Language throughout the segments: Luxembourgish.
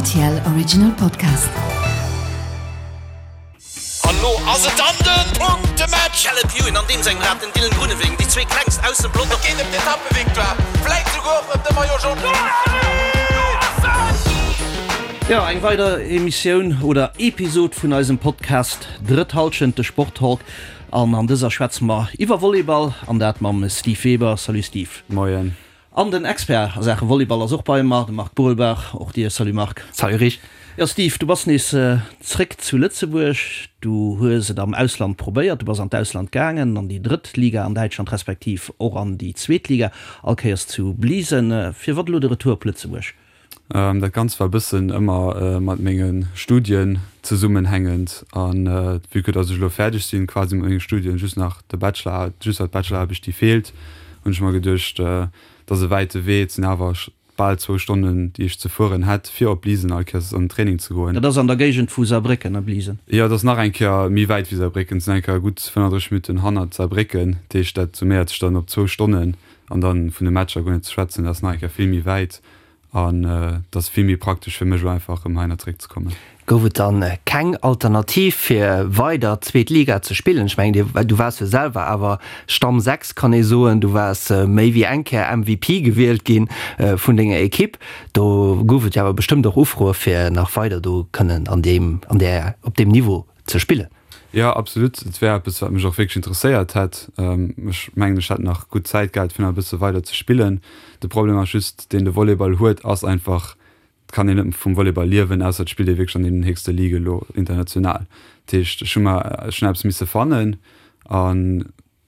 RTL Original Podcast. An lo ass et dann den Punktematch! Caleb Ewan an deem sengem Rad, den Dylan Groenewegen, déi zwee klengst aus dem Pelotong. Et geet ëm d'Etappevictoire, vläit souguer och ëm de Maillot Jaune. Jo, eng weider Emissioun oder Episod vun eisem Podcast Drëtt Hallschent, de Sporttalk. An an dëser schwätze mer iwwer Volleyball, an dat mam Steve Weber. Salut Steve. Moien. An den Expert a Saache Volleyball ass och bei mer, de Marc Burelbach. Och dir Salut Marc. Salut Rich. Jo Steve, du bass nees zréck zu Lëtzebuerg. Du hues et am Ausland probéiert, du bass an d'Ausland gaangen, an déi drëtt Liga an Däitschland, respektiv och an déi zweet Liga, all Kéiers zu Bliesen. Firwat elo de Retour op Lëtzebuerg? Dat Ganzt war e bëssen ëmmer mat menge Studien zesummenhängend. An vue que dass ech elo fäerdeg sinn quasi mat menge Studien, just nach de Bachelor, just nach d'Bacheloraarbecht déi feelt, hunn ech mer geduecht, et ass e wäite Wee, et sinn awer bal zwou Stonnen déi ech ze fueren hätt fir op Bliesen all Kéiers an den Training ze goen. Dat ass an der Géigend vu Saarbrécken, ne, Bliesen? Jo, et ass nach eng Kéier méi wäit wéi Saarbrécken, et sinn eng Kéier gutt 35 Minutten hannert Saarbrécken, dat heescht dat summéiert sech dann op zwou Stonnen. An dann vun de Matcher guer net ze schwätzen, dat ass nach eng Kéier vill méi wäit an et ass vill méi praktesch fir mech elo einfach erëm heihinner zeréck ze kommen. Gouf et dann keng Alternativ fir weider zweet Liga ze spillen? Ech mengen du waars jo selwer awer Stamm 6 kann ee soen, du waars méi wéi eng Kéier MVP gewielt ginn vun denger Ekipp. Do gouf et jo awer bestëmmt och Ufroe fir nach weider do kënnen an deem an där op deem Niveau ze spillen. Jo, absolut. Et wär eppes, wat mech och wierklech interesséiert hätt. Ech mengen, ech hätt nach gutt Zäit gehat, fir nach e bësse weider ze spillen. De Problem ass just, deen de Volleyball huet, ass einfach, et kann een net vum Volleyball liewen, ausser et spillt ee wierklech an deenen héchste Ligue elo international. Dat heescht, ech hu mer, ech hunn eppes misse fannen an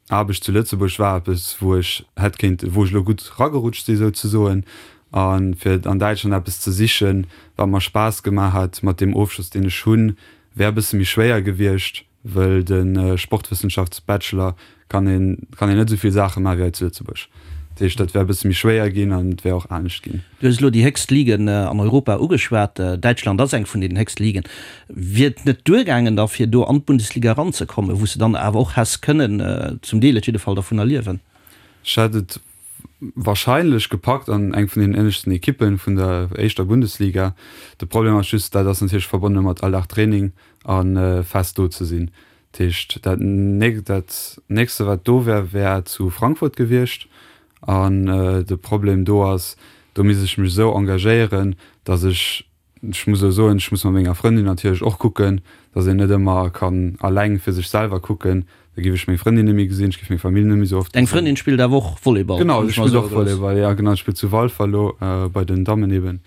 Aarbecht zu Lëtzebuerg war eppes, wou ech hätt kéint, wou ech elo gutt ragerutscht si souzesoen. A fir an Däitschland eppes ze sichen, wat mer Spaass gemaach hätt, mat deem Ofschloss, deen ech hunn, wär e bësse méi schwéier gewiescht, wëll de Sportwëssenschaftsbachelor kann een, kann een net esou vill Saache maache wéi hei zu Lëtzebuerg. Dat heescht, dat wär e bësse méi schwéier ginn an et wär och anescht ginn. Du hues elo déi héchst Ligen an Europa ugeschwat. Däitschland ass eng vun deenen héchste Ligen. Wier et net duergaangen da fir do an d'Bundesliga eranzekommen, wou s de dann awer och häss kënnen, zum Deel et jidde Fall, dervunner liewen? Ech hätt et warscheinlech gepackt an eng vun den ënneschten Ekippen vun der éischter Bundesliga. De Problem ass just, dat ass natierlech verbonne mat all Dag Training a fest do ze sinn. Dat heescht, dat nächste wat do wär, wär zu Frankfurt gewiescht. An de Problem do ass, do misst ech mech esou engagéieren, datt ech, ech muss elo soen, ech muss mat menger Frëndin natierlech och kucken, datt een net ëmmer kann alleng fir sech selwer kucken. Da géif ech meng Frëndin net méi gesinn, ech géif meng Famill net méi esou oft gesinn. Deng Frëndin spillt awer och Volleyball? Genau, si spillt och Volleyball, jo genau, si spillt zu Walfer elo bei den Dammen eben.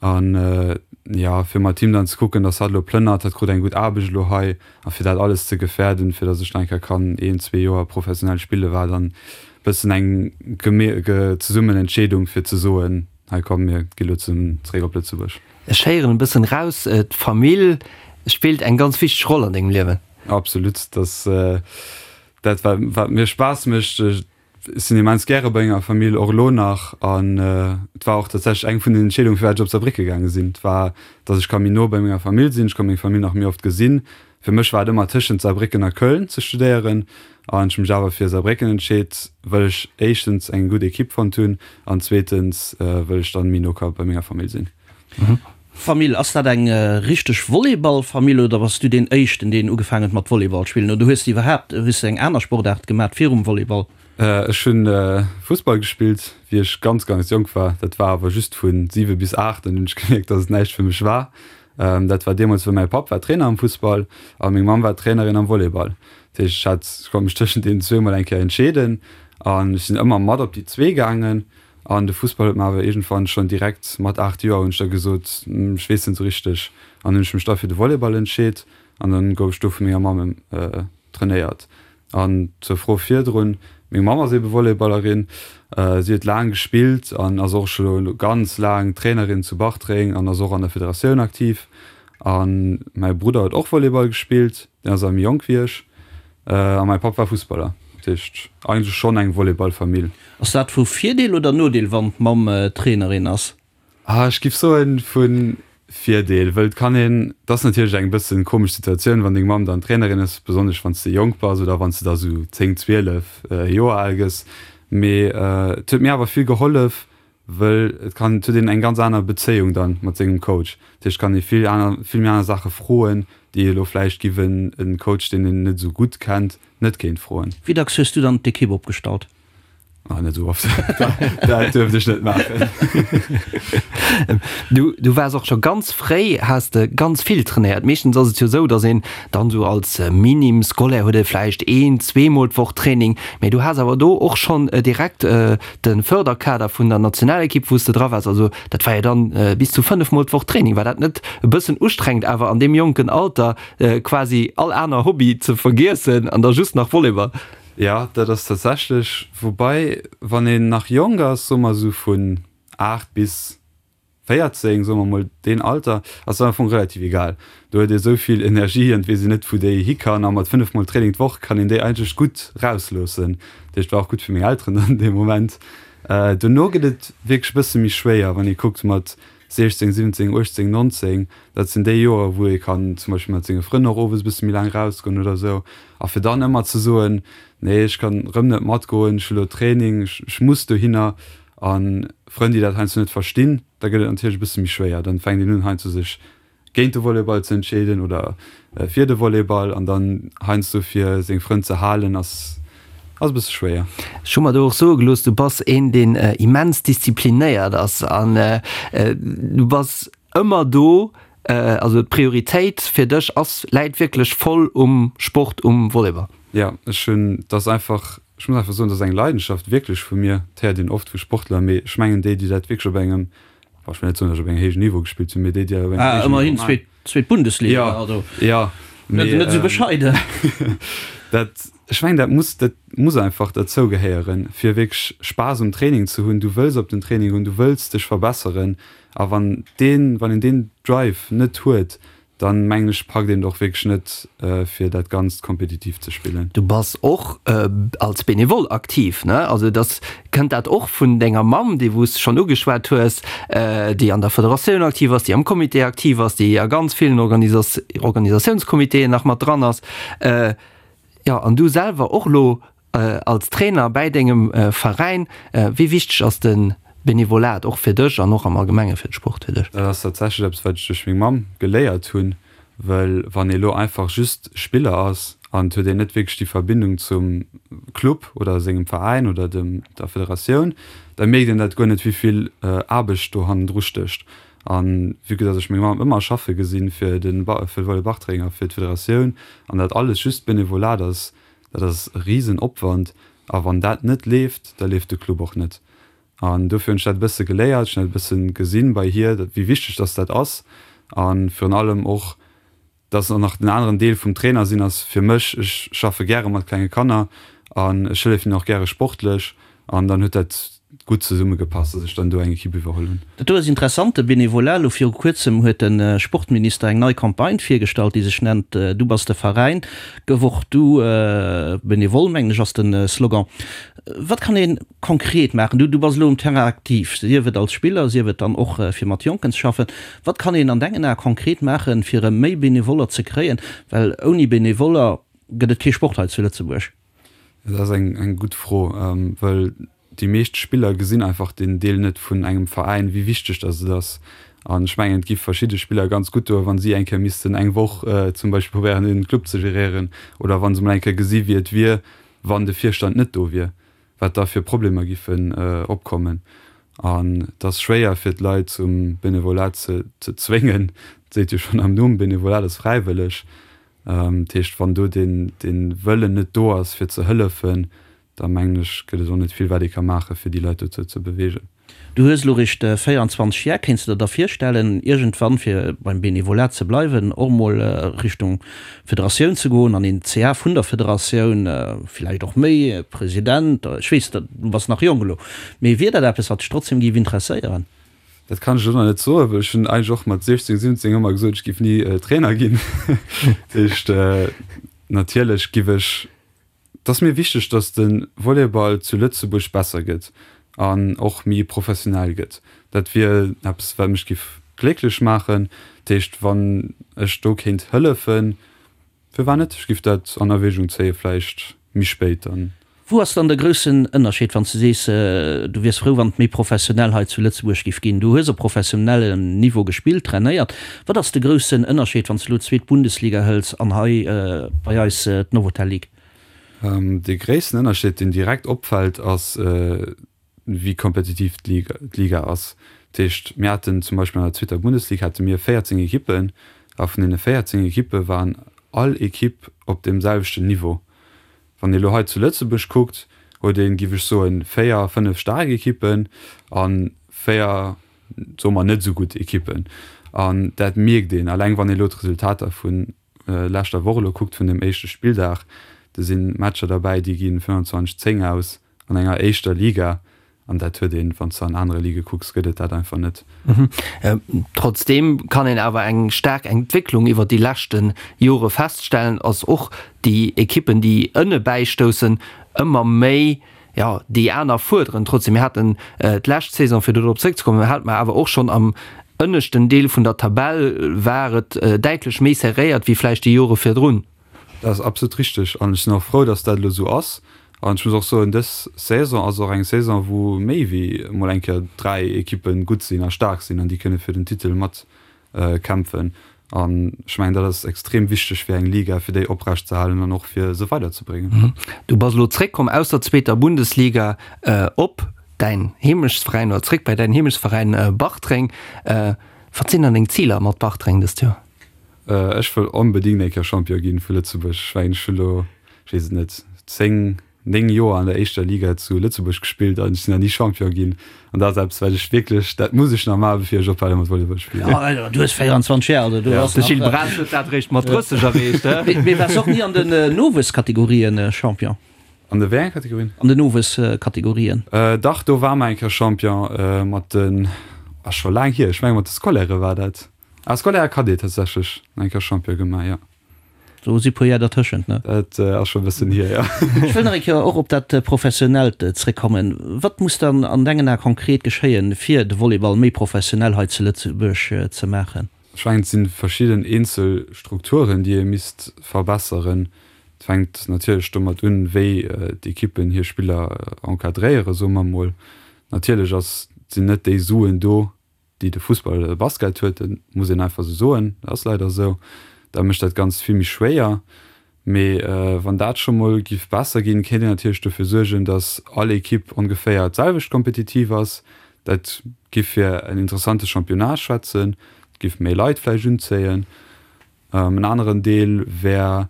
An jo, fir mat him dann ze kucken, dass hatt elo plënnert, hatt krut eng gutt Aarbecht elo hei, a fir dat alles ze gefäerden, fir dass ech nach eng Kéier kann een, zwee Joer professionell spillen, war dann bëssen eng zesummen Entscheedung, fir ze soen, hei komm, mir gi lo zesummen zeréck op Lëtzebuerg. Ech héieren e bëssen raus, d'Famill spillt eng ganz wichteg Roll an dengem Liewen. Absolut, dass dat wat wat mir Spaass mécht. Ech sinn immens gäre bei menger Famill, och elo nach. An et war och tatsächlech eng vun den Entscheedungen, firwat ech op Saarbrécke gaange sinn. Et war, datt ech ka méi no bei menger Famill sinn, ech ka meng Famill nach méi oft gesinn. Fir mech war et ëmmer tëschent Saarbrécken a Köln ze studéieren. An ech hu mech awer fir Saarbrécken entscheet, well ech éischtens eng gutt Ekipp fonnt hunn an zweetens, wëll ech dann méi no ka bei menger Famill sinn. Famill, ass dat eng richteg Volleyballfamill oder bass du deen éischten deen ugefaangen huet mat Volleyball spillen oder hues de iwwerhaapt hues de eng aner Sportaart gemat virum Volleyball? Ech hunn Fussball gespillt wéi ech ganz ganz jonk war, dat war awer just vun 7 bis 8, dann hunn ech gemierkt dass et näischt fir mech war. Dat war deemools wou mäi Papp war Trainer am Fussball a meng Mamm war Trainerin am Volleyball. Dat heescht ech hat ech konnt mech tëschent deenen zwee mol eng Kéier entscheeden an ech sinn ëmmer mat op déi zwee gaangen. An de Fussball huet mer awer iergendwann schonn direkt mat 8 Joer hunn ech da gesot, ech weess net esou richteg. An hunn ech mech da fir de Volleyball entscheet an dann gouf ech do vu menger Mamm trainéiert. An zur Fro virdrun, meng Mamm ass ebe Volleyballerin, si huet laang gespillt an ass och scho ganz laang Trainerin zu Bartreng an ass och an der Federatioun aktiv. A mäi Brudder huet och Volleyball gespillt, deen ass awer méi jonk wéi ech. A mäi Papp war Fussballer. Dat heescht eigentlech schonn eng Volleyballfamill. Ass dat vu Virdeel oder Nodeel, wann d'Mamm Trainerin ass? Ah, ech giff soen vu Virdeel, wëll et kann een, et ass natierlech eng bëssen komesch Situatioun, wann deng Mamm dann Trainerin ass, besonnesch wann s de jonk bass oder wann s de da sou 10, 12 Joer al gëss. Mee et huet mir awer vill gehollef,. Wëll et kann, et huet een eng ganz aner Bezéiung dann mat sengem Coach. Dat heescht, et kann ee vill aner, vill méi aner Saache froen, déi ee elo vläicht giff en en Coach, deen een net esou gutt kennt, net kéint froen. Wéi dacks hues du dann d'Ekipp opgestallt? Ah, net esou oft. Dat duerft ech net maachen. Du, du waars och scho ganz fréi, has de ganz vill trainéiert. Meeschtens ass et jo esou, datt een dann esou als Minim Scolaire huet ee vläicht een, zweemol d'Woch Training, mee du has awer do och schonn direkt De Förderkader vun der Nationalekipp, wou s de dra waars, also dat war jo dann bis zu 5 mol d'Woch Training. War dat net e bëssen ustrengend awer an deem jonken Alter quasi all aner Hobby ze vergiessen an da just nach Volleyball? Jo, dat ass tatsächlech, woubai wann een nach jonk ass, soe mer esou vun 8 bis 14, soe mer mol deen Alter, ass dat am Fong relativ egal. Do huet ee sou vill Energie an et weess een net wou déi hi kann a mat 5 mol Training d'Woch kann een déi eigentlech gutt rausloossen. Dat heescht war och gutt fir meng Elteren dann dee Moment. Dono gëtt et wierklech e bësse méi schwéier, wann ee kuckt mat 16, 17, 18, 19, dat sinn déi Joer wou ee kann zum Beispill mat senge Frënn och owes e bësse méi laang rausgoen oder sou. A fir dann ëmmer ze soen, nee ech kann rëm net matgoen, ech hu lo Training, ech muss dohinner, A Frënn, déi dat heiansdo net verstinn, da gëtt et natierlech e bësse méi schwéier. Dann fänkt een un heiansdo sech géint de Volleyball ze entscheeden oder fir de Volleyball an dann heiansdo fir seng Frënn ze halen ass ass e bësse schwéier. Ech hu mer do och soe gelooss, du bass een deen immens disziplinéiert ass an du bass ëmmer do, also d'Prioritéit fir dech ass läit wierklech voll um Sport, um Volleyball. Jo, ech hunn, et ass einfach Ech muss einfach soen, dat ass eng Leidenschaft wierklech vu mir. Dat héiert een oft vu Sportler, mee ech mengen déi, déi dat wierklech op engem, bon, ech wëll net soen, datt ech op engem héijen Niveau gespillt hunn, mee déi, déi dat op engem Ah, héijen Niveau ëmmerhin maachen. zweet Bundesliga, Jo, also jo, net mee net esou bescheiden. dat, ech mengen, dat muss, dat muss einfach derzou gehéieren, fir wierklech Spaass um Training ze hunn. Du wëlls op den Training goen, du wëlls dech verbesseren a wann deen, wann een deen Drive net huet, Dann mengen ech packt een et och wierklech net fir dat ganzt kompetitiv ze spillen. Du bass och als Benevole aktiv, ne? Also dass, kënnt dat och vun denger Mamm, déi wou s de schonn ugeschwat hues, déi an der Federatioun aktiv ass, déi am Comité aktiv ass, déi a ganz villen Organisatiounscomitéen nach mat dran ass. Jo, an du selwer och elo als Trainer bäi dengem Veräin. Wéi wichteg ass de Benevolat och fir dech an och am Allgemenge fir de Sport fir dech? Dat ass tatsächlech eppes, wat ech duerch meng Mamm geléiert hunn, well wann ee elo einfach just Spiller ass an et huet een net wierklech déi Verbindung zum Club oder sengem Veräin oder dem der Federatioun, da mierkt een dat guer net, wéi vill Aarbecht do hannendru stécht. An vue que dass ech meng Mamm ëmmer schaffe gesinn fir de fir de Volley Bartreng a fir d'Federatioun an dat alles just Benevolat ass, dat ass e risen Opwand. A wann dat net leeft, da leeft de Club och net. An dofir hunn ech dat e bësse geléiert, ech hunn dat e bësse gesinn bei hir, wéi wichteg dass dat ass. A virun allem och, dass och nach den aneren Deel vum Trainer sinn ass fir mech, ech schaffe gäre mat klenge Kanner an ech hëllefen hinnen och gäre sportlech an dann huet dat gutt zesumme gepasst, dass ech dann do eng Equipe iwwerholl hunn. Dat do ass interessant, de Benevolat. Elo viru kuerzem huet de Sportminister eng nei Campagne virgestallt, déi sech nennt Du bass de Veräin, gëff och du Benevole, mengen ech ass de Slogan. Wat kann ee konkret maachen? Du bass elo um Terrain aktiv, sief et als Spiller, sief et dann och fir mat Jonken ze schaffen. Wat kann een an dengen Ae konkret maachen, fir erëm méi Benevoller ze kréien? Well ouni Benevoller gëtt et kee Sport hei zu Lëtzebuerg. Dat ass eng gutt Fro, well déi meescht Spiller gesinn einfach deen Deel net vun engem Veräin, wéi wichteg datt et ass. An ech mengen, et gi verschidde Spiller ganz gutt doen, wa si eng Kéier missten eng Woch zum Beispill probéieren, een Club ze geréieren oder wa se mol eng Kéier gesi wéi et wier, wann de Virstand net do wier, wat da fir Problemer giffen opkommen. An et ass schwéier fir d'Leit zum Benevolat ze zwéngen. Et seet jo schonn am Numm, Benevolat ass fräiwëlleg. Dat heescht, wann do dee Wëllen net do ass fir ze hëllefen, da mengen ech, gëtt et och net vill wat ee ka maachen, fir déi Leit dozou ze beweegen. Du hues elo réischt 24 Jar. Kéints de der da virstellen, iergendwann, fir beim Benevolat ze bleiwen, och mol Richtung Federatioun ze goen, an een CA vun der Federatioun, villäicht och méi, President, ech weess, du bass nach jonk elo, mee wier dat eppes, wat dech trotzdem géif interesséieren? Dat kann ech elo nach net soen, well ech hunn eigentlech och mat 16, 17 ëmmer gesot, ech géif ni Trainer ginn. Dat heescht, natierlech giff ech Et ass mir wichteg, datt de Volleyball zu Lëtzebuerg besser gëtt an och méi professionell gëtt. Dat wier eppes, wat mech giff glécklech maachen. Dat heescht, wann ech do kéint hëllefen, firwat net? Ech giff dat an Erwägung zéien, vläicht méi spéit dann. Wou ass dann de groussen Ënnerscheed, wann s de sees, du wiers frou, wann et méi professionell hei zu Lëtzebuerg giff ginn? Du hues op professionellem Niveau gespillt, trainéiert. Wat ass de groussen Ënnerscheed, wann s de elo d'zweet Bundesliga hëls an hei bei eis d'Novotel Ligue? Dee gréissten Ënnerscheed, deen direkt opfält, ass, wéi kompetitiv d'Liga ass. Dat heescht, mir haten zum Beispill an der zweeter Bundesliga hate mir 14 Ekippen a vun deene 14 Ekippe waren all Ekipp op deem selwechten Niveau. Wann ee lo hei zu Lëtzebuerg kuckt, huet een, giff ech soen, 4, 5 staark Ekippen a 4, soe mer, net esou gutt Ekippen. An dat mierkt een, alleng wann ee lo d'Resultater vu leschter Woch elo kuckt, vun dem éischte Spilldag, do si Matcher derbäi, déi gi 25, 10 aus an enger éischter Liga. An dat huet een, wann s de an anere Ligë kucks, gëtt et dat einfach net. Trotzdeem kann een awer eng staark Entwécklung iwwer déi leschte Jore feststellen, ass och déi Ekippen, déi ënne bäistoussen, ëmmer méi, jo, déi aner fuerderen. Trotzdeem, mir haten d'lescht Saison, fir do drop zréckzekommen, hate mer awer och schonn am ënneschten Deel vun der Tabell war et däitlech méi serréiert wéi vläicht déi Jore virdrun. Dat ass absolut richteg an ech sinn och frou, dass dat elo esou ass. An ech muss och soen, dës Saison ass och eng Saison, wou méi wéi emol eng Kéier 3 Ekippe gutt sinn a staark sinn an déi kënne fir den Titel mat kämpfen. An ech mengen, dat ass extrem wichteg fir eng Liga, fir déi oprecht ze halen an och fir se weiderzebréngen. Du bass elo zréckkomm aus der zweeter Bundesliga op däin Heemechtsveräin oder zréck bei däin Heemechtsveräin Bartreng. Wat sinn dann deng Ziler mat Bartreng dëst Joer? Ech wëll onbedingt eng Kéier Champion ginn vu Lëtzebuerg. Ech mengen, ech hunn elo, ech weess et net, 10, 9 Joer an der éischter Liga zu Lëtzebuerg gespillt an ech sinn nach ni Champion ginn. An dat ass eppes, wat ech wierklech, dat muss ech nach maachen, bevir ech ophale mat Volleyball spillen. Jo, du hues 24 Jar, also du ass De Gilles Braas huet dat eréischt mat 30 erreecht, he? Mee waars och ni an den Nowuesskategorien Champion? An de wéi enge Kategorien? An den Nowuesskategorien. Dach, do war mer eng Kéier Champion mat den, ass scho laang hier, ech menge mat de Scolairë war dat. Ah, Scolaire a Cadet tatsächlech eng Kéier Champion gemaach, jo. Do si puer Jar dertëschent, ne? Dat ass scho e bëssen hier, jo. Ech wëll nach eng Kéier och op dat Professionellt zréckkommen. Wat muss dann an dengen Ae konkret geschéien, fir de Volleyball méi professionell hei zu Lëtzebuerg ze maachen? Ech mengen, et si verschidden eenzel Strukturen, déi ee misst verbesseren. Et fänkt natierlech domat un, wéi d'Ekippen hir Spiller encadréieren, soe mer emol. Natierlech ass, sinn net déi Suen do, déi de Fussball oder de Basket huet, dat muss een einfach esou soen, dat ass leider esou, da mécht dat Ganzt vill méi schwéier. Mee wann dat scho mol giff besser ginn, kéint een natierlech dofir suergen, datt all Ekipp ongeféier d'selwecht kompetitiv ass. Dat giff fir en interessante Championnat schwätzen, et giff méi Leit vläicht unzéien. En aneren Deel wär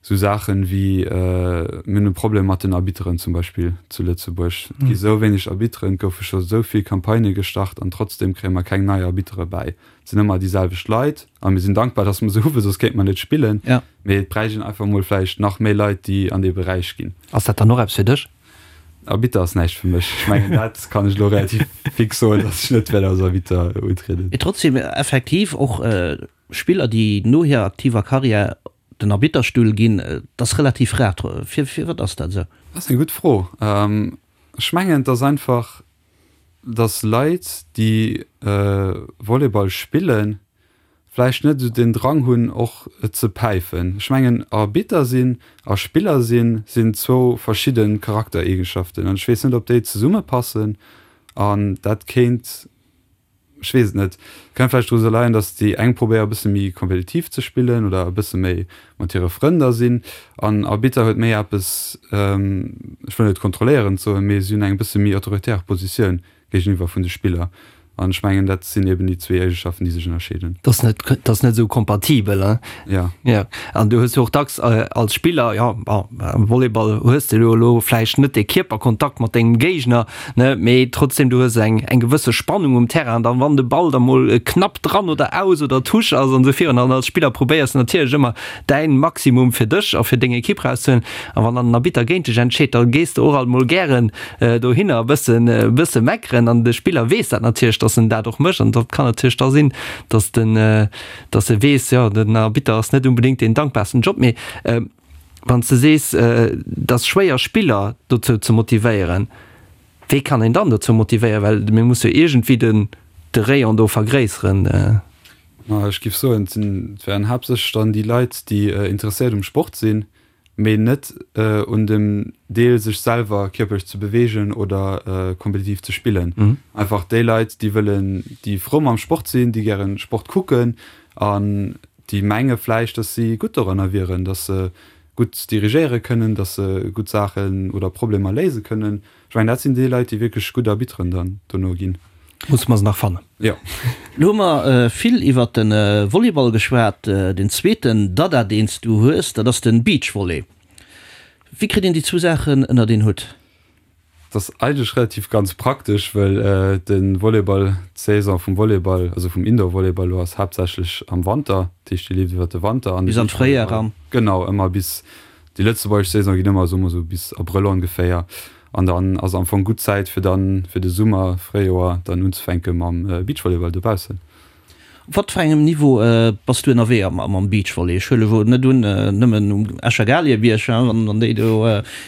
esou Saachen wéi, mir hunn e Problem mat den Arbitteren zum Beispill zu Lëtzebuerg. Et gi sou wéineg Arbitteren, et goufe scho sou vill Campagnë gestart an trotzdeem kréie mer keng nei Arbittere bäi. Et sinn ëmmer déi selwecht Leit a mir sinn dankbar, datt mer se hu well soss kéinte mer net spillen. Mee et bräicht een einfach emol vläicht nach méi Leit, déi an dee Beräich ginn. Ass dat dann och eppes fir dech? Arbitter ass näischt fir mech. Ech mengen dat kann ech elo relativ fix soen, datt ech net wäert als Arbitter utrieden. Mee trotzdem effektiv och Spiller déi no hirer aktiver Karriär den Arbitterstull ginn, dat ass relativ rar. Firwat ass dat esou? Dat ass eng gutt Fro. Ech mengen et ass einfach, datt Leit déi Volleyball spillen, vläicht net esou den Drang hunn och et ze päifen. Ech mengen Arbitter sinn a Spiller sinn, sinn zwou verschidde Charaktereegenschaften an ech weess net ob déi zesummepassen an dat kéint, ech weess et net, kéint vläicht dru leien, datt déi eng probéiere e bësse méi kompetitiv ze spillen oder e bësse méi mat hire Frënn da sinn an Arbitter huet méi eppes, ech wëll net kontrolléierend soen, mee si hunn eng bësse méi autoritär Positioun géigeniwwer vun de Spiller. An ech mengen, dat sinn eben déi zwee Eegeschaften, déi sech ënnerscheeden. Dat ass net, dat ass net esou kompatibel, hein? Ja. Ja. An du hues jo och dacks als Spiller, jo, bon, am Volleyball hues de jo elo vläicht net dee Kierperkontakt mat dengem Géigner, ne, mee trotzdem, du hues eng, eng gewësse Spannung um Terrain. An dann, wann de Ball da mol knapp dran oder aus oder Touche ass an esou virun, an als Spiller probéiers de natierlech ëmmer däin Maximum fir dech a fir deng Ekipp rauszehuelen. A wann dann den Arbitter géint dech entscheet, da gees de och alt mol gären dohinner e bëssen, e bësse meckeren an de Spiller weess dat natierlech, datt en dat och mécht an dat kann natierlech da sinn, datt den, datt e weess, jo den Arbitter ass net unbedéngt deen dankbarsten Job. Mee wann s de sees, et ass schwéier Spiller dozou ze motivéieren, wéi kann een dann dozou motivéieren, well mir musse jo iergendwéi den, de Rayon do vergréisseren. Ma ech géif soen, et sinn, et wären haaptsächlech dann déi Leit, déi interesséiert um Sport sinn. Mee net un dem Deel sech selwer kierperlech ze beweegen oder kompetitiv ze spillen. Einfach déi Leit, déi wëllen, déi frou mam Sport sinn, déi gären Sport kucken an déi menge vläicht, dass si gutt doranner wieren, dass se gutt dirigéiere kënnen, dass se gutt Saachen oder Problemer léise kënnen. Ech mengen, dat sinn déi Leit, déi wierklech gutt Arbitteren dann dono ginn. Musse mer se nach fannen. Jo. Lo hu mer vill iwwert de Volleyball geschwat. Den zweeten Dada, deen s du hues, dat ass de Beachvolley. Wéi kritt een déi zwou Saachen ënnert een Hutt? Dat ass eigentlech relativ ganz praktesch, well de Volleyball, d'Saison vum Volleyball, also vum Indoor-Volleyball elo ass haaptsächlech am Wanter. Dat heescht, déi leeft iwwert de Wanter an de Bis an d'Fréijar eran. Genau, ëmmer bis Déi lëtzebuergesch Saison geet ëmmer, soe mer esou, bis Abrëll ongeféier. An dann ass am Fong gutt Zäit fir dann fir de Summer, Fréijoer dann unzefänke mam Beachvolleyball dobaussen. Op wat fir engem Niveau bass du ënnerwee am Beachvolley? Ech huele wuel net un, nëmmen um Escher Galiebierg, wann déi do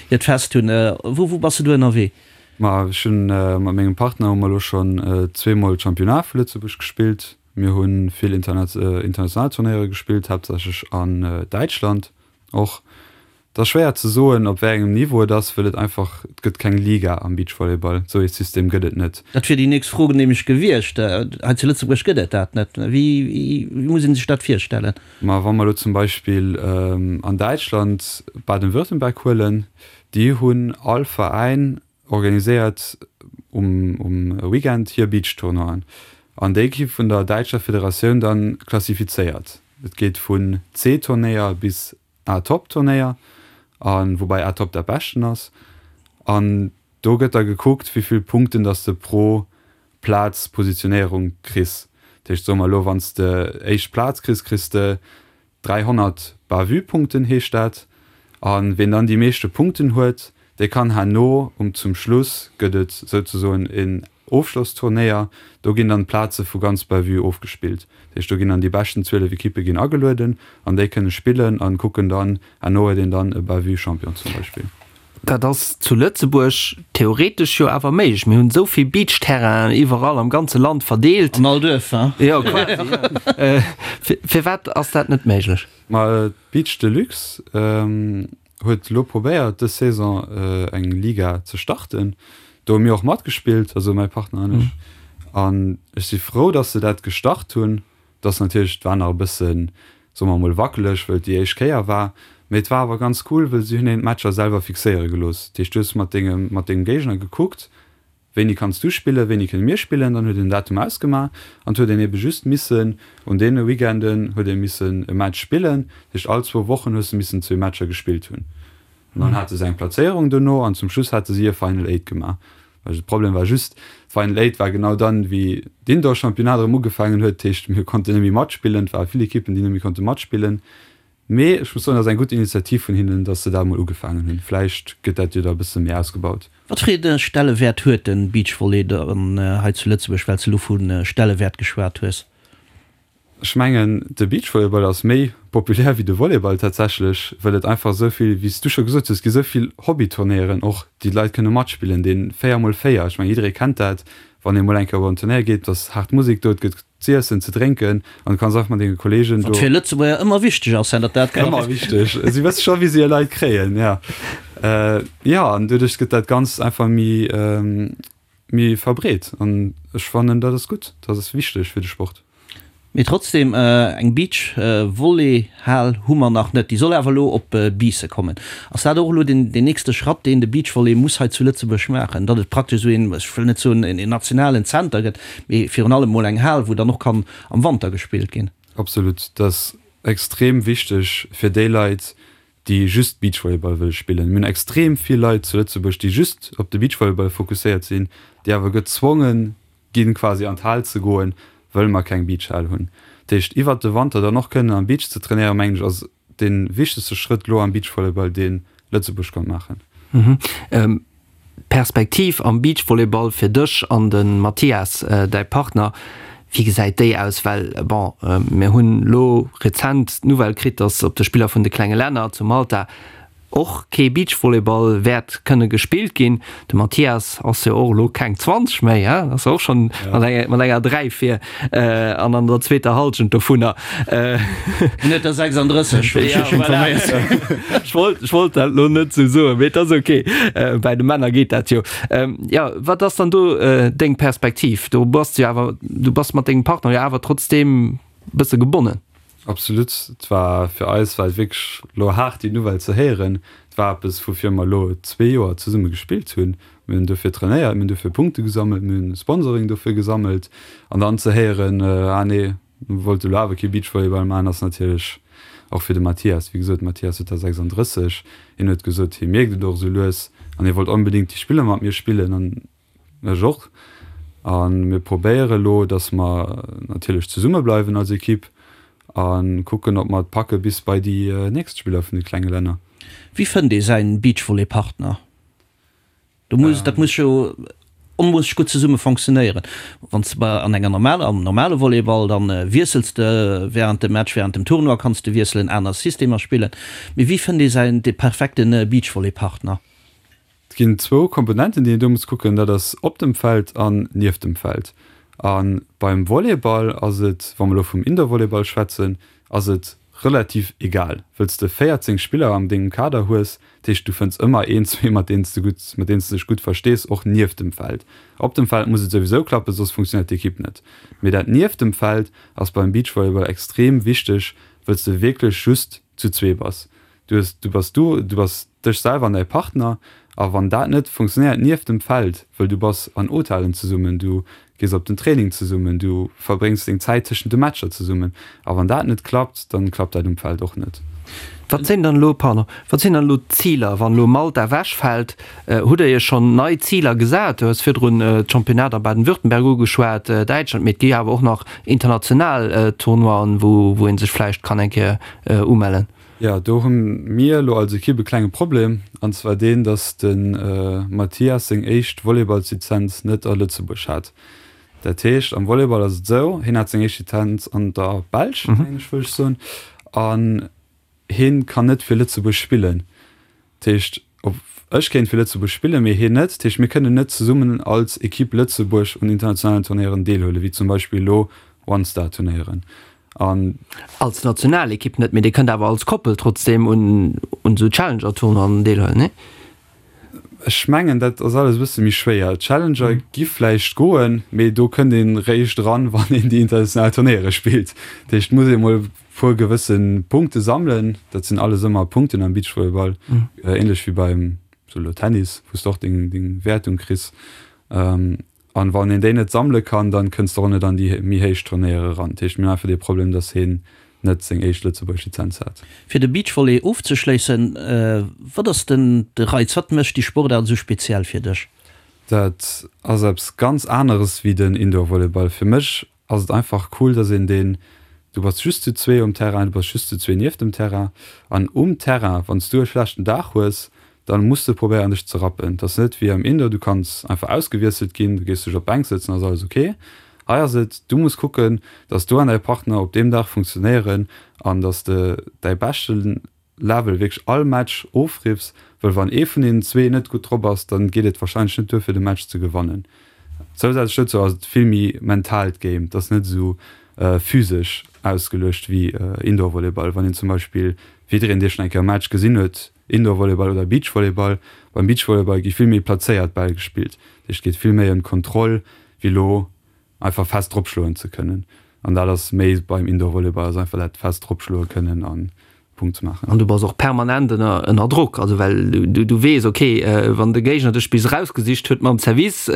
hiert Fest hunn. Wou wou bass de do ënnerwee? Ma ech hunn mat mengem Partner hu mer elo schonn zweemol d'Championnat vu Lëtzebuerg gespillt. Mir hu vill international Turnéiere gespillt, haaptsächlech an Däitschland. Och. Et ass schwéier ze soen, op wéi engem Niveau et ass, wëll et einfach, et gëtt keng Liga am Beachvolleyball. Esou ee System gëtt et net. Dat wier déi nächst Fro nämlech gewiescht. Hei zu Lëtzebuerg gëtt et dat net. Wéi muss ee sech dat virstellen? Ma wa mer elo zum Beispill an Däitschland Baden-Württemberg huelen, déi hunn all Veräin organiséiert um um Weekend hir Beachtournoien an déi gi vun der däitscher Federatioun dann klassifizéiert. Et geet vun C-Turnéier bis A-Top-Turnéier a woubäi A-Top dat beschten ass an do gëtt da gekuckt wéivill Punkten dass de pro Plaz Positionéierung kriss. Dat heescht soe mer elo wann s de éischt Plaz kriss, kriss de 300 Bavü-Punkten heescht dat. A ween dann déi meeschte Punkten huet, dee kann herno um zum Schluss gëtt et souzesoen en Ofschlossturnéier, do ginn dann d'Plaze vu ganz Bavü ofgespillt. Dat heescht do ginn dann déi beschten 12 Ekippe ginn agelueden an déi kënne spillen an kucken dann, herno huet een dann e Bavü-Champion zum Beispill. Dat ass zu Lëtzebuerg theoretesch jo awer méiglech. Mir hunn esou vill Beachterrainen iwwerall am ganze Land verdeelt. An all Duerf, hein? Jo, quasi, jo. Firwat ass dat net méiglech? Ma d'Beach Deluxe huet elo probéiert, dës Saison eng Liga ze starten. Do hu mir och matgespillt, also mäi Partner an ech. An ech si frou, datt se dat gestart hunn. Et ass natierlech, et war nach e bëssen, soe mer emol, wackeleg, wëll et déi éischt Kéier war. Mee et war awer ganz cool, wëll si hunn een d'Matcher selwer fixéiere gelooss. Dat heescht, du hues mat dengem, mat dengem Géigner gekuckt, wéini kanns du spillen, wéini kënne mir spillen. Dann huet een en Datum ausgemaach an et huet een ebe just missen un deene Weekenden huet ee missen e Match spillen. Dat heescht, all zwou Wochen hues de missen zwee Matcher gespillt hunn. An dann hate se eng Plazéierung dono an zum Schluss hate si e Final Eight gemaach. De Problem war just, d'Final Eight war genau dann, wéi d'Indoor-Championnat erëm ugefaangen huet. Dat heescht, mir konnten net méi matspillen. Et ware vill Ekippen, déi net méi konnte matspillen. Mee ech muss soen, dat ass eng gutt Initiativ vun hinnen, datt se dat emol ugefaangen hunn. Vläicht gëtt dat jo da e bësse méi ausgebaut. Wat fir ee Stellewäert huet de Beachvolley dann hei zu Lëtzebuerg, well s de elo vu Stellewäert geschwat hues? Ech mengen, de Beachvolleyball ass méi populär wéi de Volleyball tatsächlech, well et einfach esou vill, wéi s du scho gesot hues, et gi esou vill Hobbyturnéieren och, déi d'Leit kënne matspillen, dee 4 mol 4, ech mengen, jidderee kennt dat, wann ee mol eng Kéier op en Turnéier geet, et ass haart Musek do, et gëtt z'iessen, ze drénken an du kanns einfach mat denge Kolleegen do. Wat fir Lëtzebuerger ëmmer wichteg ass, datt dat klappt. Ëmmer wichteg, si wësse scho wéi se hir Leit kréien, jo. Jo, an doduerch gëtt dat Ganzt einfach méi. Méi verbreet an ech fannen dat ass gutt, dat ass wichteg fir de Sport. Mee trotzdem, eng Beach Volley Hal hu mer nach net. Déi soll awer elo op Biissen kommen. Ass dat och elo den nächste Schratt deen de Beach Volley muss hei zu Lëtzebuerg maachen, datt et praktesch esou een, ech wëll net soen een nationalen Zenter gëtt, mee virun allem mol eng Hal wou dann och kann am Wanter gespillt ginn? Absolut, dat ass extrem wichteg fir déi Leit déi just Beachvolleyball wëlle spillen. Mir hunn extrem vill Leit zu Lëtzebuerg, déi just op de Beachvolleyball fokusséiert sinn, déi awer gezwonge ginn, quasi an d'Hal ze goen, wëll mer keng Beachhal hunn. Dat heescht, iwwert de Wanter dann och kënnen am Beach ze trainéieren, mengen ech, ass dee wichtegste Schrëtt elo am Beachvolleyball, dee Lëtzebuerg konnt maachen. D'Perspektiv am Beachvolleyball fir dech an de Mathias, däi Partner, wéi gesäit déi aus? Well bon, mir hunn elo rezent d'Nouvelle kritt, datt op de Spiller vun de klenge Länner zu Malta. Och kee Beachvolleyball wäert kënne gespillt ginn. De Mathias ass jo och elo keng 20 méi, hein? Ass jo och schonn mat enger, mat enger 3 vir an an der zweeter Hallschent dovunner. En huet der 36, wéi ech mech informéiert hunn. Ech wollt, ech wollt dat elo net esou soen, mee et ass ok. Bäi de Männer geet dat jo. Jo, wat ass dann do deng Perspektiv? Do bass de jo awer, du bass mat dengem Partner jo awer trotzdeem e bësse gebonnen. Absolut. Et war fir eis war et wierklech elo haart déi Nouvelle ze héieren. Et war eppes woufir mer elo zwee Joer zesumme gespillt hunn. Mir hunn dofir trainéiert, mir hunn dofir Punkte gesammelt, mir hunn Sponsoring dofir gesammelt an dann ze héieren, ah nee, mir wollte elo awer kee Beachvolleyball maachen, ass natierlech och fir de Mathias, wéi gesot, de Mathias huet der 36, hien huet gesot, hie mierkt et och esou lues an hie wollt onbedéngt déi Spiller mat mir spillen an Ech och. A mir probéiere elo, datt mer natierlech zesumme bleiwen als Ekipp a kucken, ob mer et packe bis bei déi nächst Spiller vun de klenge Länner. Wéi fënnt ee säin Beachvolley-Partner? Do muss, dat muss jo onmoosseg gutt zesumme fonctionnéieren. Wann s de bei an enger normaler, am normale Volleyball, dann wiessels de während dem Match, während dem Tournoi kanns de wiesselen, aner Systemer spillen. Mee wéi fënnt ee säin, dee perfekte Beachvolley-Partner? Et ginn zwou Komponenten, déi een do muss kucken, dat ass op dem Feld an nieft dem Feld. A beim Volleyball ass et, wa mer elo vum Indoor-Volleyball schwätzen, ass et relativ egal, wëll s de 14 Spiller an dengem Kader hues. Dat heescht, du fënns ëmmer een, zwee, mat deenen s de gutt, mat deenen s de dech gutt verstees, och nieft dem Feld. Op dem Feld muss et souwisou klappen, soss funktionéiert d'Ekipp net. Mee dat nieft dem Feld ass beim Beachvolleyball extrem wichteg, wëll s de wierklech just zu zwee bass. Du hues, du bass du, du bass dech selwer an däi Partner a wann dat net funktionéiert nieft dem Feld, wëll du bass an Hotellen zesummen, du gees op den Training zesummen, du verbréngs deng Zäit tëschent de Matcher zesummen a wann dat net klappt, dann klappt dat um Feld och net. Wat sinn dann elo, pardon, wat sinn dann elo d'Ziler, wann elo Malta ewechfält? Hutt Der Iech schonn nei Ziler gesat? Du hues virdrun d'Championnat a Baden-Württemberg ugeschwat, Däitschland, mee et gi awer och nach international Tournoien, wou wou ee sech vläicht kann eng Kéier umellen. Jo, do hu mir elo als Ekipp e klenge Problem, an zwar deen, dass de Mathias seng éischt Volleyballslizenz net a Lëtzebuerg hat. Dat heescht, am Volleyball ass et esou, hien hat seng éischt Lizenz an der Belsch, mengen ech, wëll ech soen, an hien kann net fir Lëtzebuerg spillen. Dat heescht, op ech kéint fir Lëtzebuerg spillen, mee hien net. Dat heescht, mir kënnen net zesummen als Ekipp Lëtzebuerg un internationalen Turnéieren deelhuelen, wéi zum Beispill elo One-Star-Turnéieren. An. Als Nationalekipp net, mee Dir kënnt awer als Koppel trotzdeem un esou Challenger-Tournoien deelhuelen, nee? Ech mengen, dat ass alles e bësse méi schwéier. D'Challenger gi vläicht goen, mee do kënnt ee réischt eran, wann een déi international Turnéiere spillt. Dat heescht, et muss ee mol e puer gewësse Punkte sammelen. Dat sinn alles ëmmer Punkten am Beachvolleyball, änlech wéi beim sou elo Tennis, wou s de och deng Wäertung kriss. An wann een déi net sammele kann, dann kënns de och net an déi méi héich Turnéiere eran. Dat heescht, mir hunn einfach dee Problem, dass heen net seng éischt lëtzebuergesch Lizenz hat. Fir de Beachvolley ofzeschléissen, wat ass den de Reiz? Wat mécht déi Sportaart esou speziell fir dech? Dat ass eppes ganz aneres wéi den Indoor-Volleyball. Fir mech ass et einfach cool, dass een deen, du bass just zu zwee um Terrain, du bass just zu zwee nieft dem Terrain an um Terrain, wann s du e schlechten Dag hues, dann muss de probéieren dech ze rappen. Et ass net wéi am Indoor, du kanns einfach ausgewiesselt ginn, du gees dech op d'Bänk sëtzen, ass alles ok. Hei ass et, du muss kucken, dass du an däi Partner op deem Dag funktionéieren an dass de däi beschten Level wierklech all Match ofriffs, wëll wann ee vun deenen zwee net gutt drop ass, dann geet et wahrscheinlech net duer fir de Match ze gewannen. Zousätzlech dozou ass et vill méi mentaalt Game, et ass net esou physesch ausgeluecht wéi Indoor Volleyball. Wann een zum Beispill, wéi jiddereen dee schonn eng Kéier e Match gesinn huet, Indoor Volleyball oder Beach Volleyball, beim Beach Volleyball gi vill méi plazéiert Bäll gespillt, dat heescht et geet vill méi ëm d'Kontroll wéi elo einfach fest dropschloen ze kënnen an dat ass méi beim Indoor Volleyball ass einfach dat fest dropschloe kënnen an Punkt ze maachen. An du bass och permanent ënner ënner Drock, also well du du weess ok wann de Géigner dech bis erausgesicht huet mam Service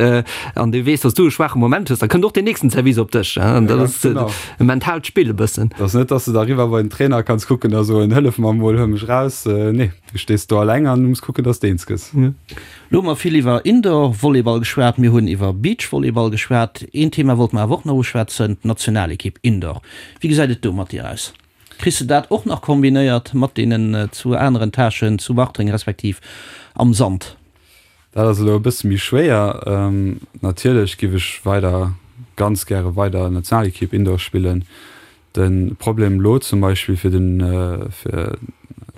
an du weess, datt du e schwaache Moment hues, da kënnt och deen nächsten Service op dech an dat ass e mentaalt Spill e bëssen. Et ass net, datt s de da eriwwer bei den Trainer kanns kucken a soen, hëllef mer emol, huel mech raus. Nee, du stees do alleng an du muss kucken, datt s de eens gëss. Lo hu mer vill iwwer Indoor-Volleyball geschwat, mir hunn iwwer Beach-Volleyball geschwat. Een Thema wollte mer awer och nach uschwätzen, d'Nationalekipp Indoor. Wéi gesäit et do mat dir aus? Kriss de dat och nach kombinéiert mat deenen zwou aneren Tâchen zu Bartreng respektiv am Sand? Dat ass elo e bësse méi schwéier. Natierlech giff ech weider ganz gäre weider Nationalekipp Indoor spillen. De Problem elo zum Beispill fir den fir.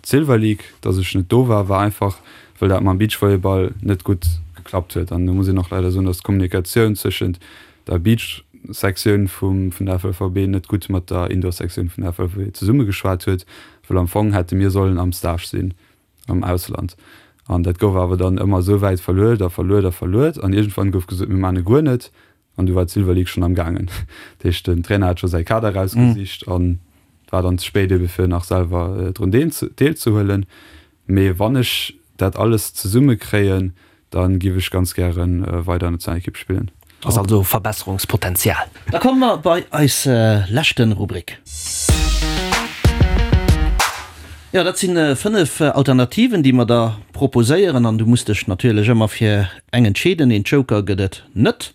d'Silver League, dass ech net do war, war einfach, wëll dat mam Beachvolleyball net gutt geklappt huet. An do muss een och leider soen, dass d'Kommunikatioun zwëschent der Beach-Sektioun vum vun der FLVB net gutt mat der Indoor-Sektioun vun der FLVB zesummegeschwat huet, wëll am Fong hätte mir sollen am Stage sinn am Ausland. An dat gouf awer dann ëmmer esou wäit verluet a verluet a verluet an iergendwann gouf gesot, mir maachen e guer net. An du war d'Silver League schonn am gaangen. Dat heescht, den Trainer hat scho säi Kader erausgesicht an et war dann ze spéit ebe fir nach selwer drun deelzehuelen. Mee wann ech dat alles zesumme kréien, da giff ech ganz gäre weider Nationalekipp spillen. Ass also Verbesserungspotenzial. Da komme mer bei eis leschten Rubrik. Jo, dat sinn 5 Alternativen, déi mer der proposéieren an du muss dech natierlech ëmmer fir eng entscheeden. Een Joker gëtt et net.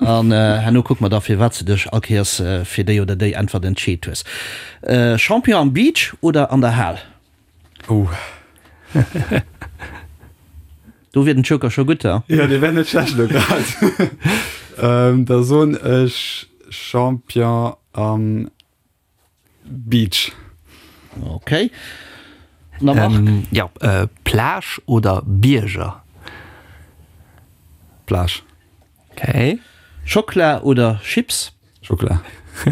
An herno kucke mer da firwat s de dech all Kéiers fir déi oder déi Äntwert entscheet hues. Champion am Beach oder an der Hal? Oh. Do wier den Joker scho gutt, ha? Jo, dee wär net schlecht elo grad. Da soen ech Champion am Beach. Ok. Na Marc? Jo, Plage oder Bierger? Plage. Ok. Schockla oder Chips? Schockla.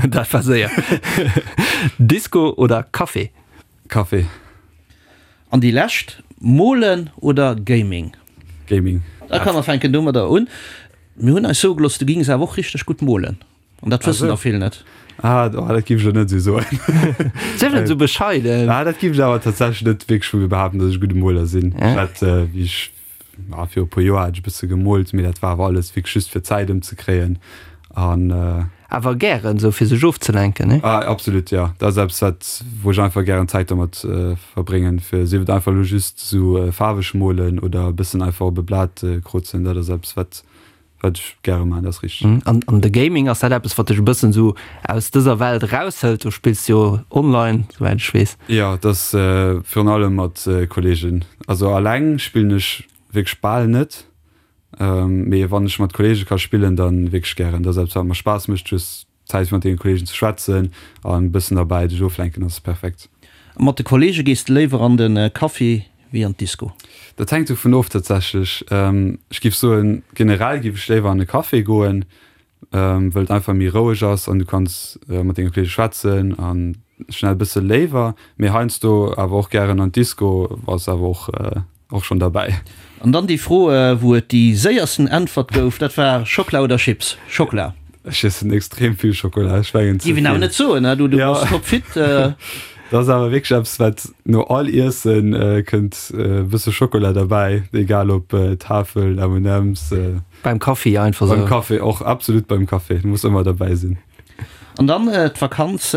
Dat war séier. Disco oder Café? Café. An déi lescht, Molen oder Gaming? Gaming. Da komm mer fänken domadder un. Mir hunn eis soe gelooss, du gings awer och richteg gutt molen. An dat wëssen der vill net. Ah, oh, dat giff ech elo net esou soen. Sief net esou bescheiden. Ah, dat giff ech awer tatsächlech net wierklech vu mir behaapten, datt ech e gudde Moler sinn. Ech hat, wéi ech, ah, viru e puer Joer hat ech e bësse gemoolt, mee dat war awer alles wierklech just fir d'Zäit ëmzekréien. An. Awer gären, esou fir sech ofzelenken, ne? Ah, absolut, jo. Dat ass eppes, wat, wou ech einfach gären Zäit domat verbréngen, fir, sief et einfach elo just esou faarweg molen oder e bëssen einfach op e Blat krozen, dat ass eppes, wat Wat ech gäre maachen, dat ass richteg. An an de Gaming, ass dat eppes, wat dech e bëssen esou aus dëser Welt eraushëlt? Du spills jo online, souwäit ech weess. Jo, et ass virun allem mat Kolleegen. Also alleng spillen ech wierklech bal net, mee wann ech mat Kolleege ka spillen, da wierklech gären. Dat ass eppes, wat mer Spaass mécht, just Zäit fir mat denge Kollegen ze schwätzen an e bëssen derbäi dech oflenken ass perfekt. A mat de Kollege gees de léiwer an de Café wéi an d'Disco? Dat hänkt dovun of tatsächlech. Ech giff soen generell giff ech léiwer an e Café goen, wëll et einfach méi roueg ass an du kanns mat denge Kollege schwätzen an schnell bësse léiwer. Mee heiansdo awer och gären an d'Disco ass awer och Och schon derbäi. An dann déi Fro, wou et déi séiersten Äntwert gouf, dat war Schockla oder Chips? Schockla. Ech iessen extrem vill Schokola, ech mengen ze Géif een awer vill. net soen, ne? Du bass topfit. Dat ass awer wierklech eppes, wat no all Iessen kënnt e bësse Schokola derbäi, egal ob Tafel, M&M's. Beim Kaffi einfach sou. Beim Kaffi och, absolut beim Kaffi, muss ëmmer derbäi sinn. An dann d'Vakanz,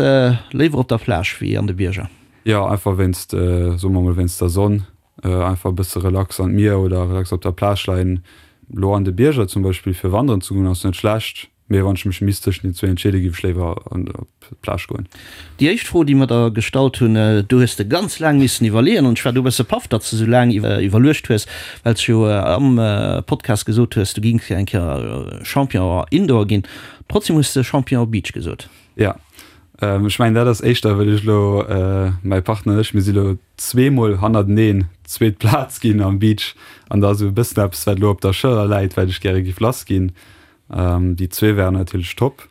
léiwer op der Plage wéi an de Bierger? Jo, einfach wéinst, soe mer mol, wéinst der Sonn. Einfach e bësse relax an d'Mier oder relax op der Plage leien. Lo an de Bierger zum Beispill fir wanderen ze goen ass net schlecht, mee wann ech mech misst tëschent den zwee entscheeden, géif ech léiwer op d'Plage goen. Déi éischt Fro, déi mer der gestallt hunn, do hues de ganz laang missen iwwerleeën an ech war do e bësse paff, datt s de esou laang iwwerluecht hues, well s jo am Podcast gesot hues, du gings eng Kéier Champion Indoor ginn. Trotzdem hues de Champion Beach gesot. Jo, ech mengen dat ass éischter well ech elo, mäi Partner an ech, mir si lo zweemol hannerteneen zweet Plaz ginn am Beach an da ass esou e bëssen eppes wat elo op der Schëller läit, wat ech gäre giff lass ginn. Déi zwee wären natierlech top,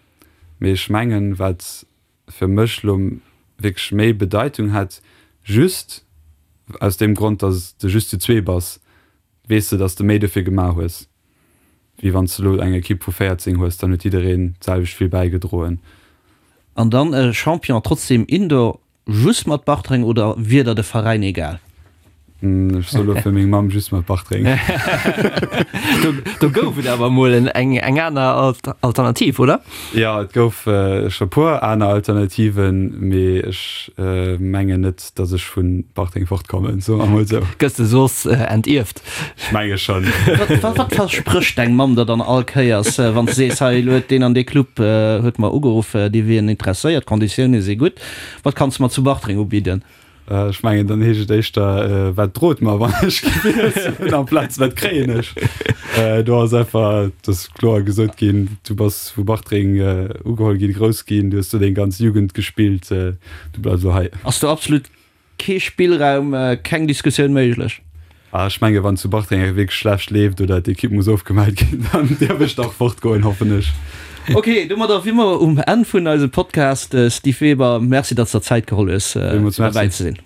mee ech mengen wat fir mech elo wierklech méi Bedeitung hätt, just aus deem Grond, datt de just zu zwee bass, weess de, datt de méi dofir gemaach hues. Wéi wann s de elo eng Ekipp vu 14 hues, dann huet jiddereen d'selwecht vill bäigedroen. An dann e Champion trotzdem Indoor, just mat Bartreng oder wier der de Veräin egal? Ech soe lo fir meng Mamm, just mat Bartreng. Do gouf et awer emol eng aner Alternativ, oder? Jo, et gouf scho puer aner Alternativen, mee ech mengen net, dass ech vu Bartreng fortkommen, soe mer mol sou. Gëss de soss entierft? Ech menge schonn. Wat versprécht deng Mamm der dann all Kéiers, wann s de sees, hei elo huet deen an dee Club huet mer ugeruff, déi wieren interesséiert, d'Konditioune si gutt, wat kanns de mer zu Bartreng ubidden? Ech mengen, dann heescht et éischter, wat drot mer, wann ech gewielt hunn, amplaz wat kréien ech. Do ass einfach, et ass kloer gesot ginn, du bass vu Bartreng ugeholl ginn, grouss ginn, du hues do deng ganz Jugend gespillt, du bleifs elo hei. Ass do absolut. Kee Spillraum, keng Diskussioun méiglech. Ah, ech menge wann zu Bartreng wierklech schlecht leeft oder d'Ekipp muss ofgemellt ginn, dann dierf ech dach fortgoen, hoffen ech. Ok, domadder si mer um Enn vun eisem Podcast. Steve Weber, Merci, datt s der Zäit geholl hues, fir derbäi ze sinn.